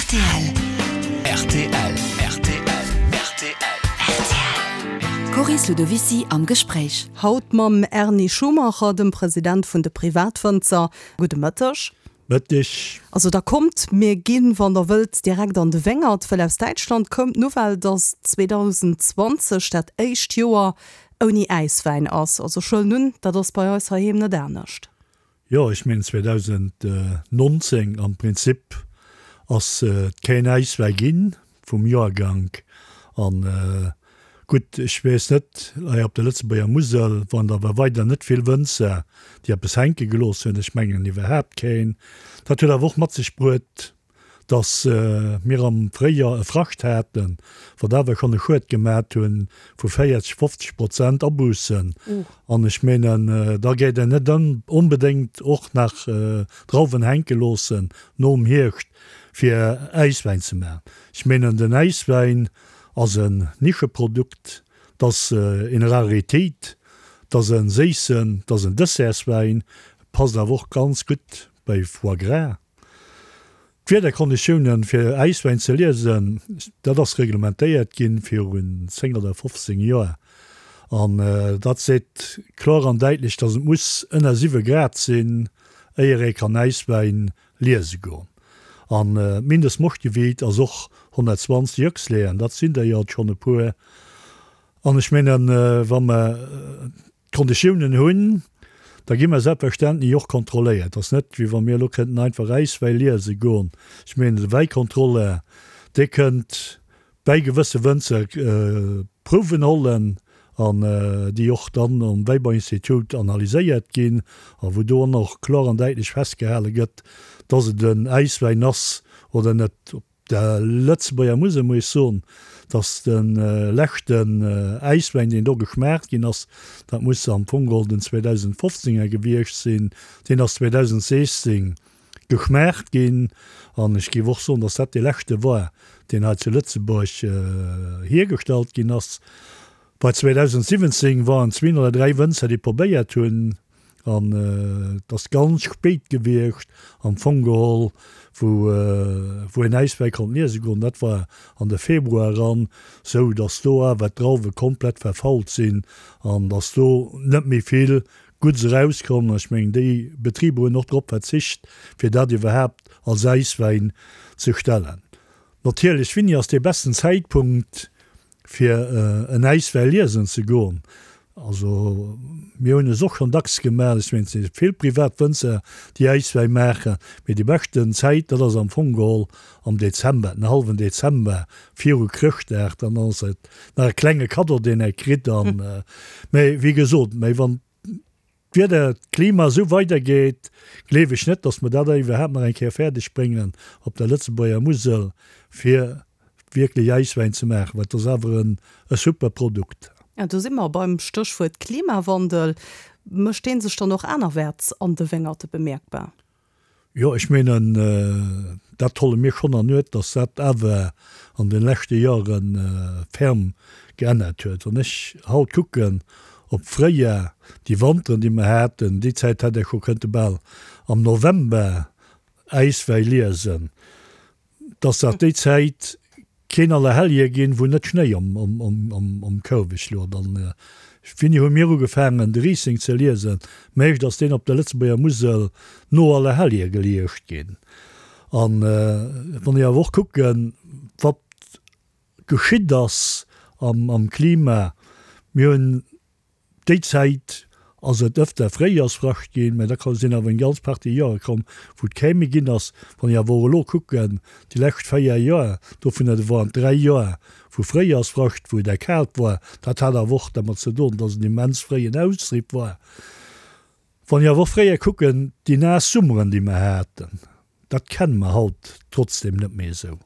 Rtl. Rtl. Rtl. Rtl. D'Coris Ludovicy am Gespréich. Haut mam Erny Schumacher, dem President vun de Privatwënzer. Gudde Mëtteg. Mëtteg. Also da kommt, mir ginn, wann der wëllt, direkt an de Wéngert, wëll aus Däitschland koum d'Nouvelle, dass 2020 dat éischt Joer ouni Äiswäin ass. Also ech huelen un, dat ass bei eis heiheem net anescht. Jo, ech mengen 2019 am Prinzip ass et keen Äiswäi ginn vum Joergank. An gutt, ech weess net, hei op der Lëtzebuerger Musel waren der awer weider net vill Wënzer, déi eppes hänke gelooss hunn. Ech mengen iwwerhaapt keen. Dat huet awer och mat sech bruet, dass mir am Fréijoer e Frascht haten, wat awer schonn e Schued gemat hu vu 40, 50 Prozent Abussen. An ech menen, da gétt een net onbedéngt och nach Drauwen hänke loossen nom Hierscht, fir Äiswäin ze maachen. Ech menen, den Äiswäin ass en Nischeprodukt, 't ass eng Raritéit, 't ass e séissen, 't ass en Dessertswäin, passt awer och ganz gutt bei Foie gras. D'Wiederkonditiounen fir Äiswäin ze liesen, dat ass reglementéiert ginn virun 10 oder 15 Joer an dat seet kloer an däitlech, dass et muss ënner 7 Grad sinn, éier ee kann Äiswäin liese goen. An d'Mindestmoschtgewiit ass och 120 Jöchsleeën, dat sinn der jo schonn e puer. An ech mengen, wa mer D'Konditiounen hunn, da gi mer selbstverständlech och kontrolléiert. Et ass net, wéi wa mir elo kënnten einfach Äiswäi liese goen. Ech mengen, de Wäikontrolleur, dee kënnt bäi gewësse Wënzer Prouwen hollen an déi och dann am Wäibauinstitut analyséiert ginn a wou do och kloer an däitlech festgehale gëtt, dass et en Äiswäin ass oder net. Der Lëtzebuerger Musel muss ech soen, dass de leschten Äiswäin, deen do geschmaacht ginn ass, dat muss am Fong geholl den 2015 er gewiescht sinn, deen ass 2016 geschmaacht ginn. An ech géif och soen, dass dat dee leschte war, deen hei zu Lëtzebuerg hiergestallt ginn ass. Bei 2017 waren zween oder dräi Wënzer, déi probéiert hunn, An et ass ganz spéit gewiescht am Fong geholl, wou wou een Äiswäi konnt liese goen. Dat war an de Februar eran, sou datt do awer d'Drauwe komplett verfault sinn an datt do net méi vill Gudds erauskomm. Ech mengen, déi Betriber hunn och drop verzicht, fir dat iwwerhaapt als Äiswäin ze stellen. Natierlech, Winni ass dee besten Zäitpunkt fir en Äiswäi liesen ze goen? Also mir hunn es och schonn dacks gemaach, ech mengen et si vill privat Wënzer déi Äiswäi maachen, mee déi beschten Zäit dat ass am Fong geholl am Dezember, den hallwen Dezember viru Chrëschtdag, dann ass et nach e klenge Kaddo deen ee kritt an, mee wéi gesot, mee wann d'Wieder, d'Klima esou weidergeet, gleef ech net, datt mer dat iwwerhaapt nach eng Kéier fäerdeg bréngen op der Lëtzebuerger Musel, fir wierklech Äiswäin ze maachen, well et ass awer e super Produkt. Ja, do si mer beim Stéchwuert Klimawandel. Mécht dee sech dann och anerwäerts an de Wéngerte bemierkbar? Jo, ech menen, dat holle mir schonn an Uert, dass dat awer an de leschte Jahre ferm geännert huet. Wann ech haut kucken op fréier, déi Wanteren, déi mer haten, déi Zäit hätt ee scho kënnte bal am November Äiswäi liesen. dass dat déi Zäit keen Allerhellje ginn, wou net Schnéi um Kouweg luet. An wéini hu mir ugefaangen, de Riesling ze liesen? Meescht ass deen op der Lëtzebuerger Musel no Allerhellje geliescht ginn. An wann ech awer och kucken, wat geschitt ass am Klima, mir hunn Déi Zäit ass et ëfter Fréijoersfrascht ginn, mä da sinn awer eng ganz Partie Joere komm, wou et kee méi ginn ass. Wann ech awer och elo kucken, déi lescht 4 Joer, dovunner waren 3 Joer vu Fréijoersfrascht, wou et erkaalt war. Dat hat awer och dermat ze doen, dass et en immens fréien Austrieb war. Wann ech awer och fréier kucken, déi naass Summeren, déi mer haten, dat kenne mer haut trotzdem net méi esou.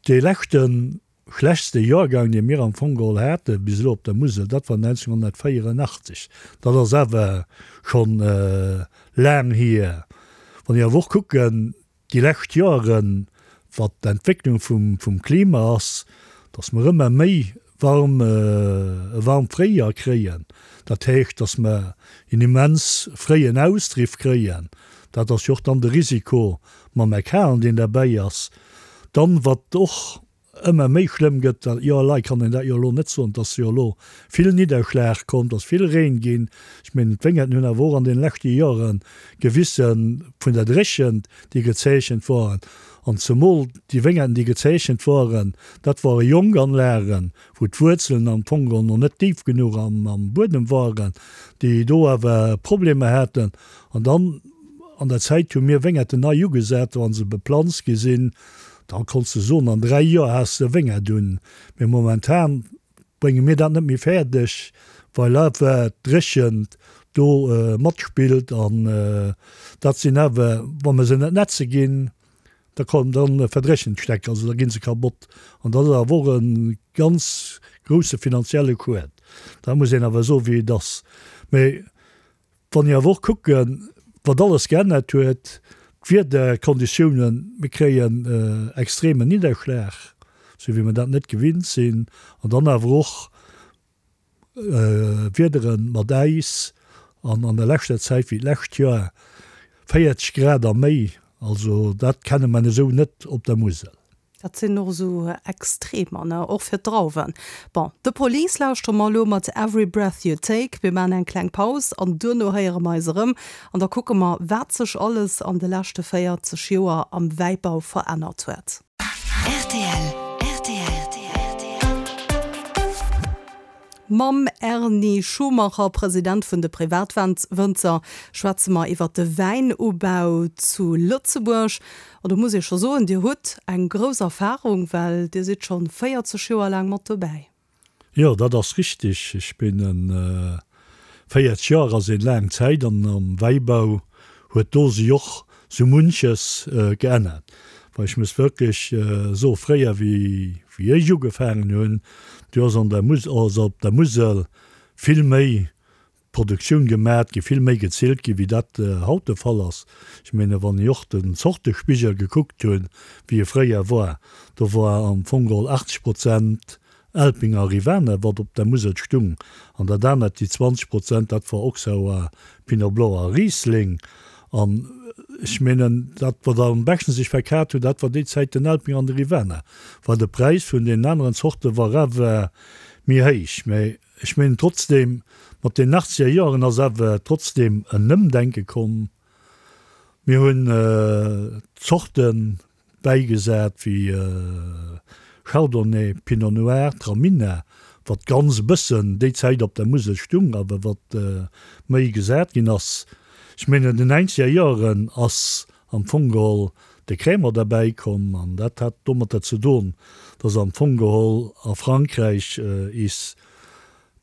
Dee leschten schlechtste Joergang, dee mir am Fong geholl hate bis elo op der Musel, dat war 1984. Dat ass awer schonn laang hier. Wann ech awer och kucken, déi lescht Joeren, wat d'Entwécklung vum Klima ass, datt mer ëmmer méi warm, e waarmt Fréijoer kréien, dat heescht, datt mer en immens fréien Austriff kréien, dat ass jo och dann de Risiko mam Erkalen, deen derbäi ass. Dann, wat och ëmmer méi schlëmm gëtt, dat jo elei kann een dat jo elo net soen, et ass jo elo vill Nidderschlag komm, et ass vill Reen ginn. Ech mengen, d'Wéngerten hunn awer och an deene leschte Jore gewisse vun der Dréchent, déi gezeechent waren. An zemol déi Wéngerten, déi gezeechent waren, dat ware jonk Anlagen, wou d'Wuerzelen am Fong geholl nach net déif genuch am Buedem waren, déi do awer Problemer haten. An dann an der Zäit hu mir Wéngerten nei ugesat, wa se beplanzt gi sinn, da konns de soen, an 3 Joer has de e Wéngert un. Mee momentan brénge mir dat net méi fäerdeg, well awer d'Dréchent do matspillt. An dat sinn awer, wa mer se net netze ginn, da kommen, da verdréchnen d'Stäck, also da gi se kabott. An dat ass awer och e ganz grousse finanzielle Schued. Dat muss een awer soen, wéi et ass. Mee Wann ech awer och kucken, wat alles geännert huet, d'Wiederkonditiounen, mir kréien extremen Nidderschlag, esou wéi mer dat net gewinnt sinn, an dann awer och Wiedere mat Äis an an der leschter Zäit, wéi d'lescht Joer, 40 Grad a méi, also dat kenne mer esou net op der Musel. Dat sinn och esou Extremer, ne, och fir d'Drauwen. Bon, The Police lauschtere mer elo mat Every Breath You Take. Mir maachen eng kleng Paus an duerno héiere mer eis erëm an da kucke mer, wat sech alles an de leschte 40 Joer am Wäibau verännert huet. Rtl, rtl. Mam Erny Schumacher, President vun de Privatwënzer, schwätze mer iwwer de Wäinubau zu Lëtzebuerg. An do muss ee scho soen, Dir hutt eng grouss Erfarung, well Dir sidd scho 40 Joer laang mat dobäi. Jo, dat ass richtig. Ech bin en 40 Joer ass een laang Zäit an am Wäibau huet do sech och sou munches geännert. Well ech muss wierklech soe fréier wéi wéi ech ugefaangen hunn, du ass an der Mus ass op der Musel vill méi Produktioun gemat gi, vill méi gezillt gi wéi dat haut de Fall ass. Ech menge wann ech och den Zortespigel gekuckt hunn, wéi e fréier war, do war am Fong geholl 80 Prozent Elpinger Rivaner, wat op der Musel stung, an dat anert, déi 20 Prozent, dat war Auxerrois, Pinot Blanc a Riesling. An ech menen, dat wat am beschten sech verkat huet, dat war déi Zäit den Elpinger an de Rivaner, well de Präis vun deenen aneren Zorte war awer méi héich. Mä ech menen trotzdem, mat den achtzeger Joeren ass awer trotzdem en Ëmdenke komm. Mir hunn Zorten bäigesat wéi Chardonnay, Pinot Noir, Traminer, wat ganz e bëssen déi Zäit op der Musel stung, awer wat méi gesat ginn ass. Ech mengen an den neinzeger Joeren ass am Fong geholl de Crémant derbäi komm an dat hat domatter ze don, dass am Fong geholl a Frankräich is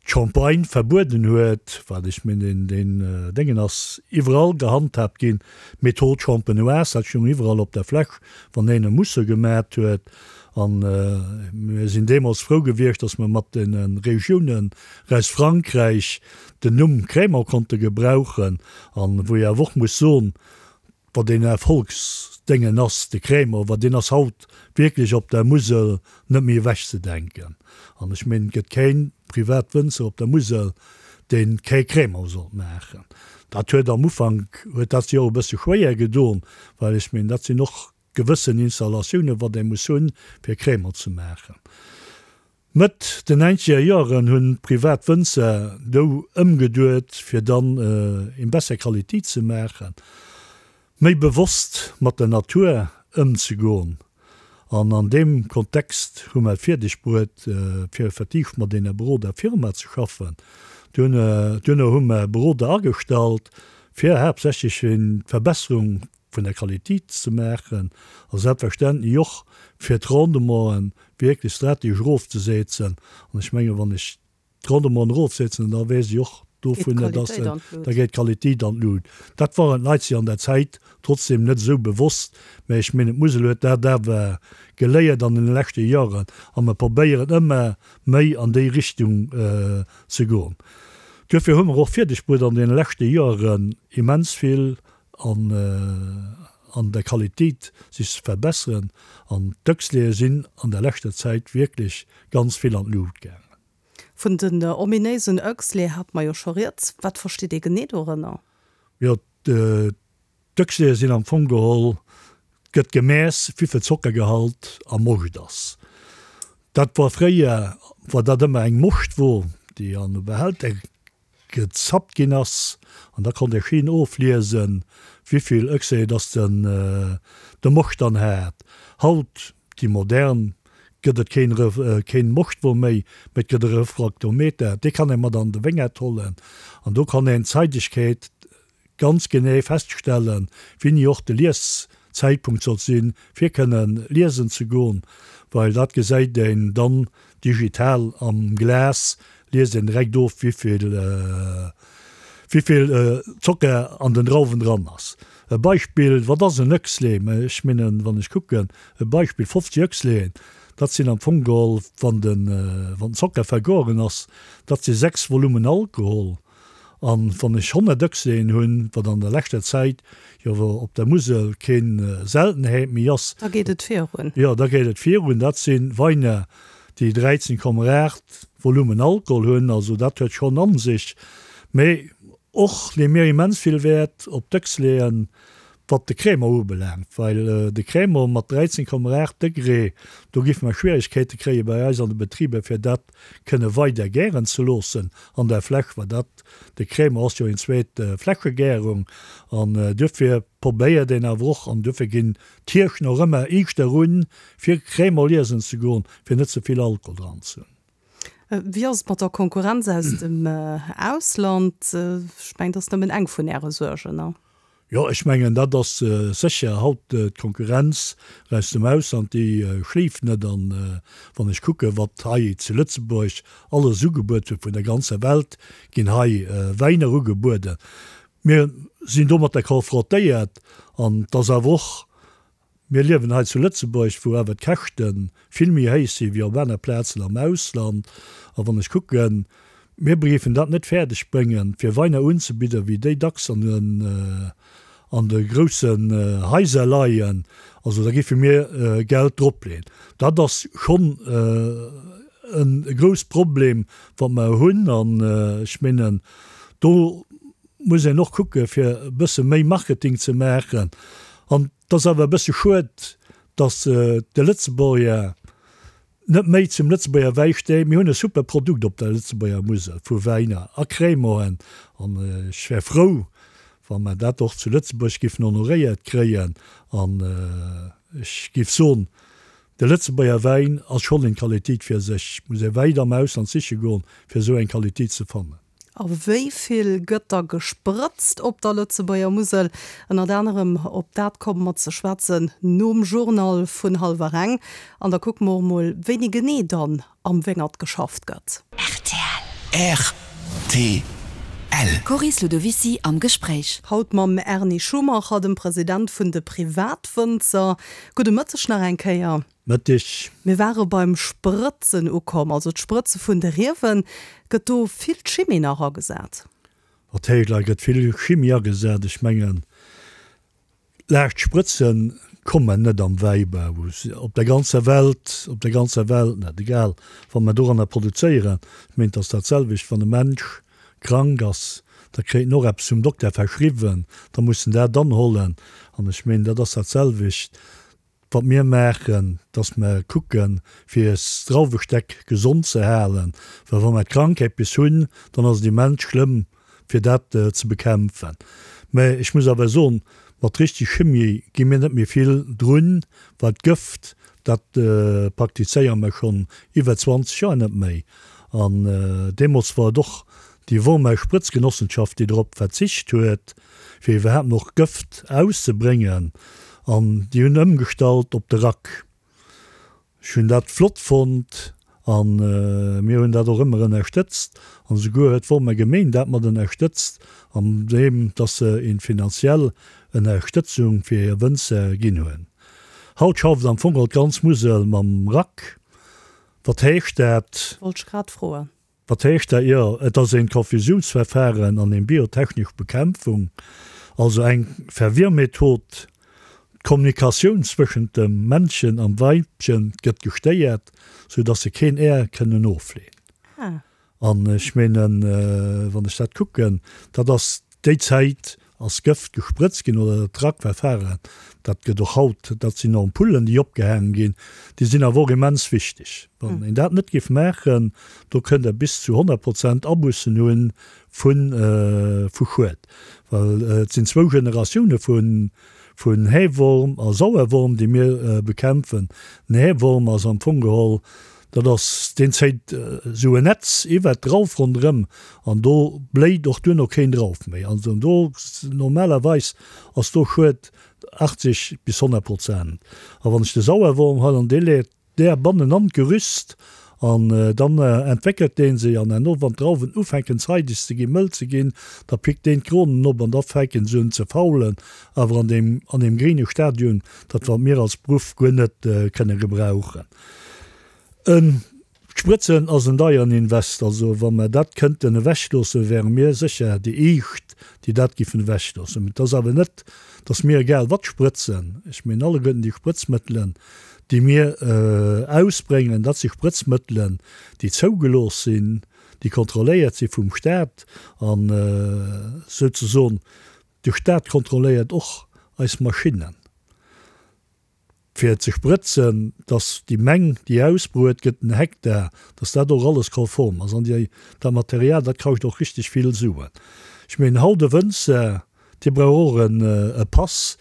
d'Champagne verbueden huet, wat ech mengen deen Déngen ass iwwerall gehandhaabt ginn, d'Méthode champenoise, dat stoung iwwerall op der Fläsch, wann een e Mousse gemat huet. An mir sinn deemools frou gewiescht, datt mer mat deene Regiounen aus Frankräich den Numm Crémant konnte gebrauchen. An wou ee awer och muss soen, Wat een Erfolgsdéngen ass, de Crémant, well deen ass haut wierklech op der Musel net méi ewechzedenken. An ech mengen, et gëtt kee Privatwënzer op der Musel, dee kee Crémant sollt maachen. Dat huet am Ufank huet dat sech och e bësse schwéier gedoen, well ech mengen, dat sinn och gewëssen Installatiounen, wat ee muss hunn, fir Crémant ze maachen. Mëtt den neinzeger Joeren hunn privat Wënzer dou ëmgeduet fir dann eng besser Qualitéit ze maachen, méi bewosst mat der Natur ëmzegoen an an deem Kontext hu mer et fierdeg bruet fir effektiv mat enger Beroder Firma ze schaffen. Duerno hu mer Beroder agestallt fir haaptsächlech d'Verbesserung vun der Qualitéit ze maachen a selbstverständlech och fir d'Rendementen wierklech strategesch erofzesetzen. An ech mengen, wann ech d'Rendementen erofsetzen, da weess ech och dovun, dass da geet d'Qualitéit an d'Lut. Dat waren d'Leit sech an der Zäit trotzdem net esou bewosst, mä ech mengen, d'Musel huet dat awer geléiert an den leschte Joren a mer probéieren ëmmer méi an déi Richtung ze goen. Duerfir hu mer och fierdeg bruet an deene leschte Joren immens vill an an der Qualitéit sech ze verbesseren an d'Dëcksleeë sinn an der leschter Zäit wierklech ganz vill an d'Luucht gaangen. Vun den ominéisen Oechsle hate mer jo scho rieds. Wat versteet ee genee dorënner? Jo, d'Oechsleeë sinn am Fong geholl. Gëtt gemess, wéivill Zockergehalt am Moscht ass. Dat war fréier, war dat ëmmer eng Moschtwo, déi an e Behälter gezappt ginn ass, an da konnt ee schéin ofliesen, wéivill Oechsle dass den de Moscht dann hat. Haut, déi modern, gëtt et keen keen Moschtwo méi, mee et gëtt e Refraktometer, dee kann ee mat an de Wéngert hollen, an do kann een d'Zeidegkeet ganz genee feststellen, wéini och de Lieszäitpunkt sollt sinn, fir kënnen liesen ze goen, well dat gesäit een dann digital am Glas, liest een direkt of, wéivill wéivill Zocker an den Drauwen dran ass. E Beispill, wat ass en Oechsle? Mä ech mengen, wann ech kucken, e Beispill, 50 Oechsleen, dat sinn am Fong geholl, wann den wann den Zocker vergoren ass, dat si 6 Volumen Alkohol. An wann ech 100 Ëchseen hunn, wat an der leschter Zäit jo op der Musel keen Seltenheet méi ass. Da geet et virun. Jo, da geet et virun. Dat si Weiner, déi 13,8 Volumen Alkohol hunn. Also dat huet schonn a sech. Mee och leeë mir immens vill Wäert op d'Ëchsleeën, wat de Crémant ubelaangt, well de Crémant mat 13,8 Degré, do géife mer Schwieregkeete kréie bei eis an de Betriber, fir dat kënne weider gären ze loossen an der Fläsch, well dat, de Crémant ass jo eng zweet Fläschegärung an duerfir probéiert een awer och, an duerfir ginn d'Hirschen och ëmmer iischter un, fir Crémant liesen ze goen, fir net ze vill Alkohol dran ze hunn. Wéi ass et mat der Konkurrenz aus dem Ausland? Ech mengen, dat ass nëmmen eng vun Äre Suergen, ne? Jo, ech mengen, dat ass sécher haut d'Konkurrenz aus dem Ausland, déi schléift net. An wann ech kucken, wat hei zu Lëtzebuerg alles ugebuet gëtt, vun der ganzer Welt ginn hei Wäiner ugebueden. Mir sinn domatter konfrontéiert an et ass awer och Mir liewen hei zu Lëtzebuerg, wou awer d'Käschte vill méi héich si wéi op aner Plazen am Ausland. A wann ech kucken, mir géifen dat net fäerdeg bréngen, fir Weiner unzebidden, wéi déi dacks an den, an de groussen Haiser leien. Also da géife mir Geld dropleeën. Dat ass schonn e grouss Problem, wat mer hunn. An ech mengen, do muss een och kucke fir e bësse méi Marketing ze maachen. An et ass awer e bësse schued, datt de Lëtzebuerger net méi zum Lëtzebuerger Wäi steet. Mir hunn e super Produkt op der Lëtzebuerger Musel vu Wäiner a Crémanten an ech wär frou, wa mer dat och zu Lëtzebuerg giffen honoréiert kréien. An ech géif soen, de Lëtzebuerger Wäin ass schonn eng Qualitéit fir sech. Et muss ee wäit am Ausland siche goen, fir esou eng Qualitéit ze fannen. A wéi vill gëtt da gesprëtzt op der Lëtzebuerger Musel? Ënnert anerem op dat komme mer ze schwätzen nom Journal vun hallwer eng. An da kucke mer och mol, wéini genee dann am Wéngert geschafft gëtt. Rtl. Rtl. Coris Ludovicy am Gespréich. Haut mam Erny Schumacher, dem President vun de Privatwënzer. Gudde Mëtteg nach eng Kéier. Mëtteg. Mir ware beim Sprëtzen ukomm, also d'Sprëtze vun de Riewen. Gëtt do vill Chimie nach agesat? Wat héich lei gëtt vill Chimie agesat. Ech mengen, laascht Sprëtze kommen net am Wäibau op der ganzer Welt, op der ganzer Welt net, egal wat mer doranner produzéieren. Ech mengen, et ass dat selwecht, wann e Mensch krank ass, da kréit en och eppes vum Dokter verschriwwen, da muss en dat anhollen. An ech mengen, dat ass dat selwecht. Wat mir maachen, dass mer kucken, fir eis Drauwestäck gesond ze halen, well wa mer d'Krankheet bis hunn, dann ass et immens schlëmm, fir dat ze bekämpfen. Mä ech muss awer soen, mat richtig Chimie gi mir net méi vill drun, well d'Gëft, dat praktizéiere mer schonn iwwer 20 Joer net méi. An deemools war et och déi Wormer Sprëtzgenossenschaft, déi drop verzicht huet, fir iwwerhaapt nach Gëft auszebréngen an déi hunn ëmgestallt op de Rack. Ech hunn dat flott fonnt a mir hunn dat och ëmmer ënnerstëtzt an esouguer huet d'Wormer Gemeen dat mat ënnerstëtzt an deem dass se een finanziell Ënnerstëtzung fir hir Wënzer ginn hunn. Haut schafft am Fong all d'ganz Musel mam Rack. Wat heescht dat? Wollt ech grad froen. Wat heescht dat? Jo, et ass een Konfusiounsverfahren an eng biotechnesch Bekämpfung, also eng Verwirrmethod. D'Kommunikatioun zwëschent dem Männchen am Weibchen gëtt gestéiert, sou dass se keen Är kënnen ofleen. An ech meenen, wann ech dat kucken, dat ass déi Zäit. ass Gëft gesprëtzt ginn oder dat Rackverfahren, dat gëtt och haut, dat sinn Ampullen, déi opgehaangen ginn, déi sinn awer och immens wichteg. Wann een dat net géif maachen, do kënnt Der bis zu 100 Prozent Abussen hu vu Schued, well et sinn zwou Generatioune vu vun Häworm a Sauerworm, déi mir bekämpfen. Den Häworm ass am Fong geholl, dat ass, deen zéit esou en Netz iwwert d'Drauf ronderëm an do bléit och duerno keen Drauf méi. Also do normalerweis ass do Schued 80 bis 100 Prozent. A wann ech de Sauerworm huelen, dee leet Där bannen an d'Gerüst an dann entwéckelt deen se an herno wann d'Drauwen ufänken zeideg ze ginn, mëll ze ginn, da pickt deen d'Kronen op an da fänken se un ze faulen, awer an deem an deem gréine Stadium, dat wat mir als Beruff guer net kënne gebrauchen. En D'Sprëtzen ass en deieren Invest, also wa mer dat kënnten ewechloossen, wäre mir sécher déi éischt, déi dat giffen ewechloossen. Mä et ass awer net, datt mir egal wat sprëtzen. Ech mengen alleguerten déi Sprëtzmëttelen, déi mir ausbréngen, dat si Sprëtzmëttelen, déi zougelooss sinn, déi kontrolléiert si vum Staat an souzesoen de Staat kontrolléiert och eis Maschinnen, fir ze sprëtzen, dass déi Meng, déi ausbruet gëtt, den Hektar, dass dat och alles konform ass. An déi, dat Material, dat kascht och richteg vill Suen. Ech mengen, haut e Wënzer, dee brauch och e Pass,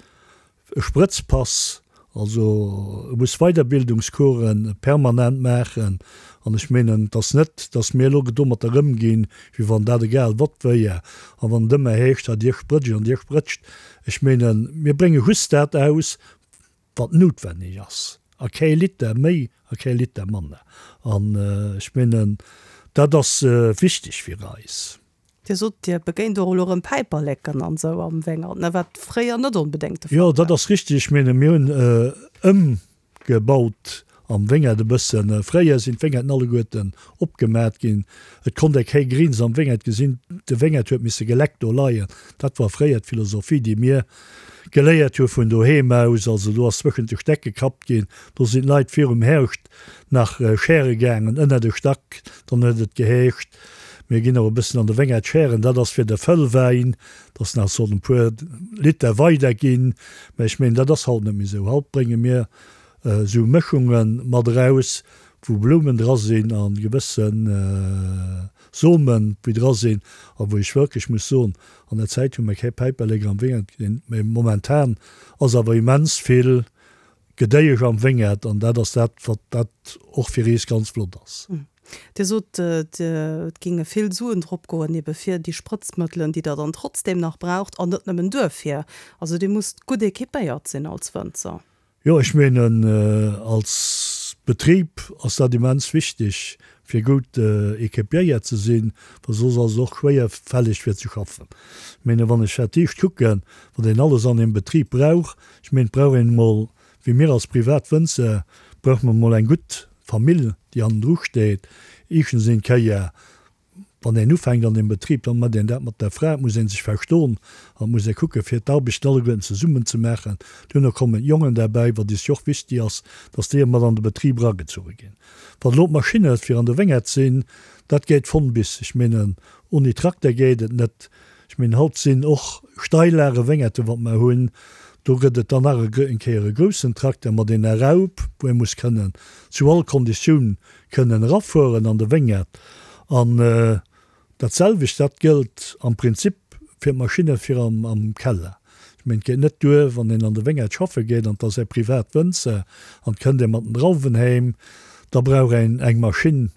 E Sprëtzpass, also e muss Weiderbildungscoursen permanent maachen. An ech menen, et ass net, datt mir elo domatter ëmginn, wéi wann dat egal wat wéier a wann et ëmmer heescht, ha Dir sprëtscht an Dir sprëtscht. Ech menen, mir brénge just dat aus, wat noutwenneg ass, a kee Liter méi a kee Liter manner. An ech menen, dat ass wichteg fir eis. Dir sot, Dir begéint och elo erëm Päiperleken an esou am Wéngert, ne, wat fréier net onbedéngt de Fall war. Jo, dat ass richteg. Ech menge mir hunn ëmgebaut am Wéngert e bëssen. Fréier sinn d'Wéngerten alleguerten opgemat ginn. Et konnt ee kee Grins am Wéngert gesinn. De Wéngert huet misse geleckt do leien. Dat war fréier d'Philosophie, déi mir geléiert hu vun doheem aus. Also do ass zwëschent de Stäck gekappt ginn. Do sinn d'Leit virum Herrscht nach schäre gaangen ënner de Stack. Dann huet et geheescht, Mir ginn och e bëssen an de Wéngert schären, dat ass fir de Fëllwäin, dass nach sollen e puer Liter weider ginn. Mä ech mengen, dat ass haut net méi esou. Haut brénge mir esou Mëschunge mat eraus, wou Blumen dra sinn a gewësse Somen, wéi dra sinn a wou ech wierklech muss soen, an der Zäit hu mir kee Päiperlek am Wéngert gesinn, mä momentan ass awer immens vill Gedéiesch am Wéngert an dat ass dat, wat dat och fir eis ganz flott ass. Dir sot, et géinge vill Suen drop goen, ebe fir déi Sprëtzmëttelen, déi Der dann trotzdeem nach braucht, an net nëmmen duerfir. Also Dir musst gutt equipéiert sinn als Wënzer. Jo, ech menen, als Betrib ass dat immens wichteg, fir gutt equipiéiert ze sinn, well soss ass et och schwéierfälleg fir ze schaffen. Ech menen, wann ech dat dicht kucken, wat een alles an engem Betrib brauch, Ech mengen, et brauch een emol, wéi mir als privat Wënzer, brauche mer emol eng gutt Famill, déi hannendru steet. Éischtens een Kéier, wann een ufänkt an deem Betrib, dann mécht een dat mat der Fra, et muss ee sech verstoen an et muss ee kucke fir d'Arbechten alleguerten zesummen ze maachen. Duerno kommen d'Jongen derbäi, wat is jo och wichtig ass, dass déi mat an de Betrib eragezuche ginn. Wann elo d'Maschinne fir an de Wéngert sinn, dat geet von bis. Ech menen, oni Trakter geet et net. Ech mengen, haut sinn och Steillage Wéngerten, wat mer hunn. Do gëtt et dann nach eng Kéier e groussen Trakter mat enger Raup, wou ee muss kënnen zu all Konditioun kënnen erafueren an de Wéngert. An dat selwecht, dat gëllt am Prinzip fir d'Maschinne fir am Keller. Ech mengen, et geet net duer, wann een an de Wéngert schaffe geet an et ass ee privat Wënzer an et kënnt ee mat den Drauwen heem, da brauch een eng Maschinn,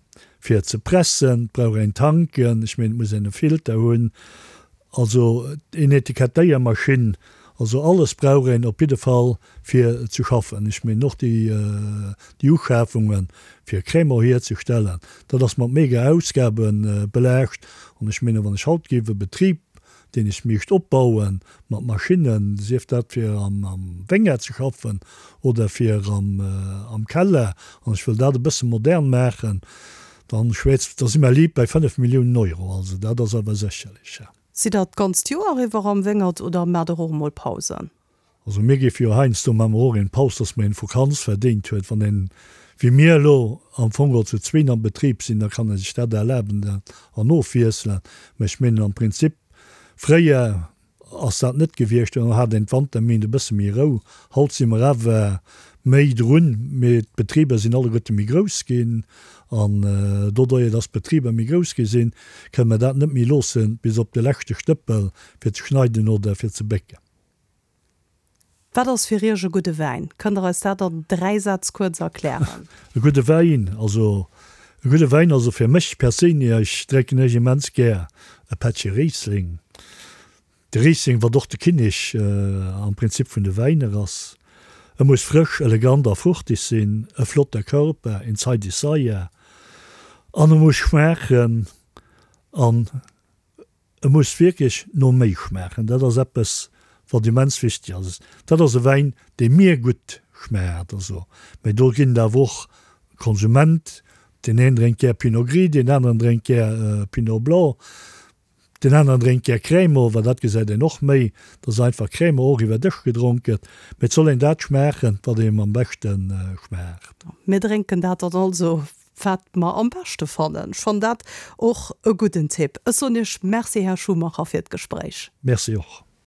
fir ze pressen, et brauch een Tanken, ech mengen et muss een e Filter hunn, also een Etikettéiermaschinn, also alles brauch een op jidde Fall fir ze schaffen. Ech mengen och déi déi Uschafungen fir Crémant hierzestellen, dat ass mat mega Ausgabe belaascht an ech mengen wann ech haut géif e Betrib deen ech mischt opbauen, mat Maschinnen, sief dat fir am Wéngert ze schaffen oder fir am Keller, an ech wëll dat e bësse modern maachen, dann schwätzt, da si mer liit bei 5 Milliounen Euro. Also dat ass awer sécherlech. Sidd Der d'ganzt Joer iwwer am Wéngert oder maacht Der och emol Pausen? Also mir géife jo heiansdo, maache mer och een Paus, dass mer een Vakanz verdéint huet. Wann een, wéi mir elo, am Fong geholl zu zween am Betrib sinn, da kann ee sech dat erlaben an ofwiesselen. Mä ech mengen am Prinzip, fréier. ass dat net gewiescht, do hat een d'Wanterméint e bësse méi Rou. Haut si mer awer méi drun, mee d'Betriber sinn alleguerte méi grouss ginn an doduerjer, dass d'Betriber méi grouss gi sinn, kënne mer dat net méi loosse bis op de leschte Stëppel fir ze schneiden oder fir ze bécken. Wat ass fir Iech e gudde Wäin? Kënnt Der eis dat an 3 Sätz kuerz erklären? E gudde Wäin, also e gudde Wäin, also fir mech perséinlech drénken ech immens gär e Pättche Riesling. De Riesling, wat och de Kinnek am Prinzip vun de Wäiner ass. E muss frësch, elegant a fruchtig sinn, e flotter Körper, een zeideg Saier an e muss schmaachen an E muss wierklech no méi schmaachen. Dat ass eppes, wat immens wichteg ass. Dat ass e Wäin, dee mir gutt schmaacht. Also, mä do ginn et awer och Konsument, deen een drénkt gär Pinot Gris, deen aneren drénkt gär Pinot Blanc, deen aneren drénkt gär Crémant, well dat gesäit een och méi, dass einfach Crémant och iwwer Dësch gedronk gëtt. Mä et soll een dat schmaachen, wat eem am beschte schmaacht. Mir drénken dat dann also Wat mer am beschte fannen. Ech fannen dat och e gudden Tipp. Ech soen Iech Merci, Här Schumacher, fir d'Gespréich. Merci och.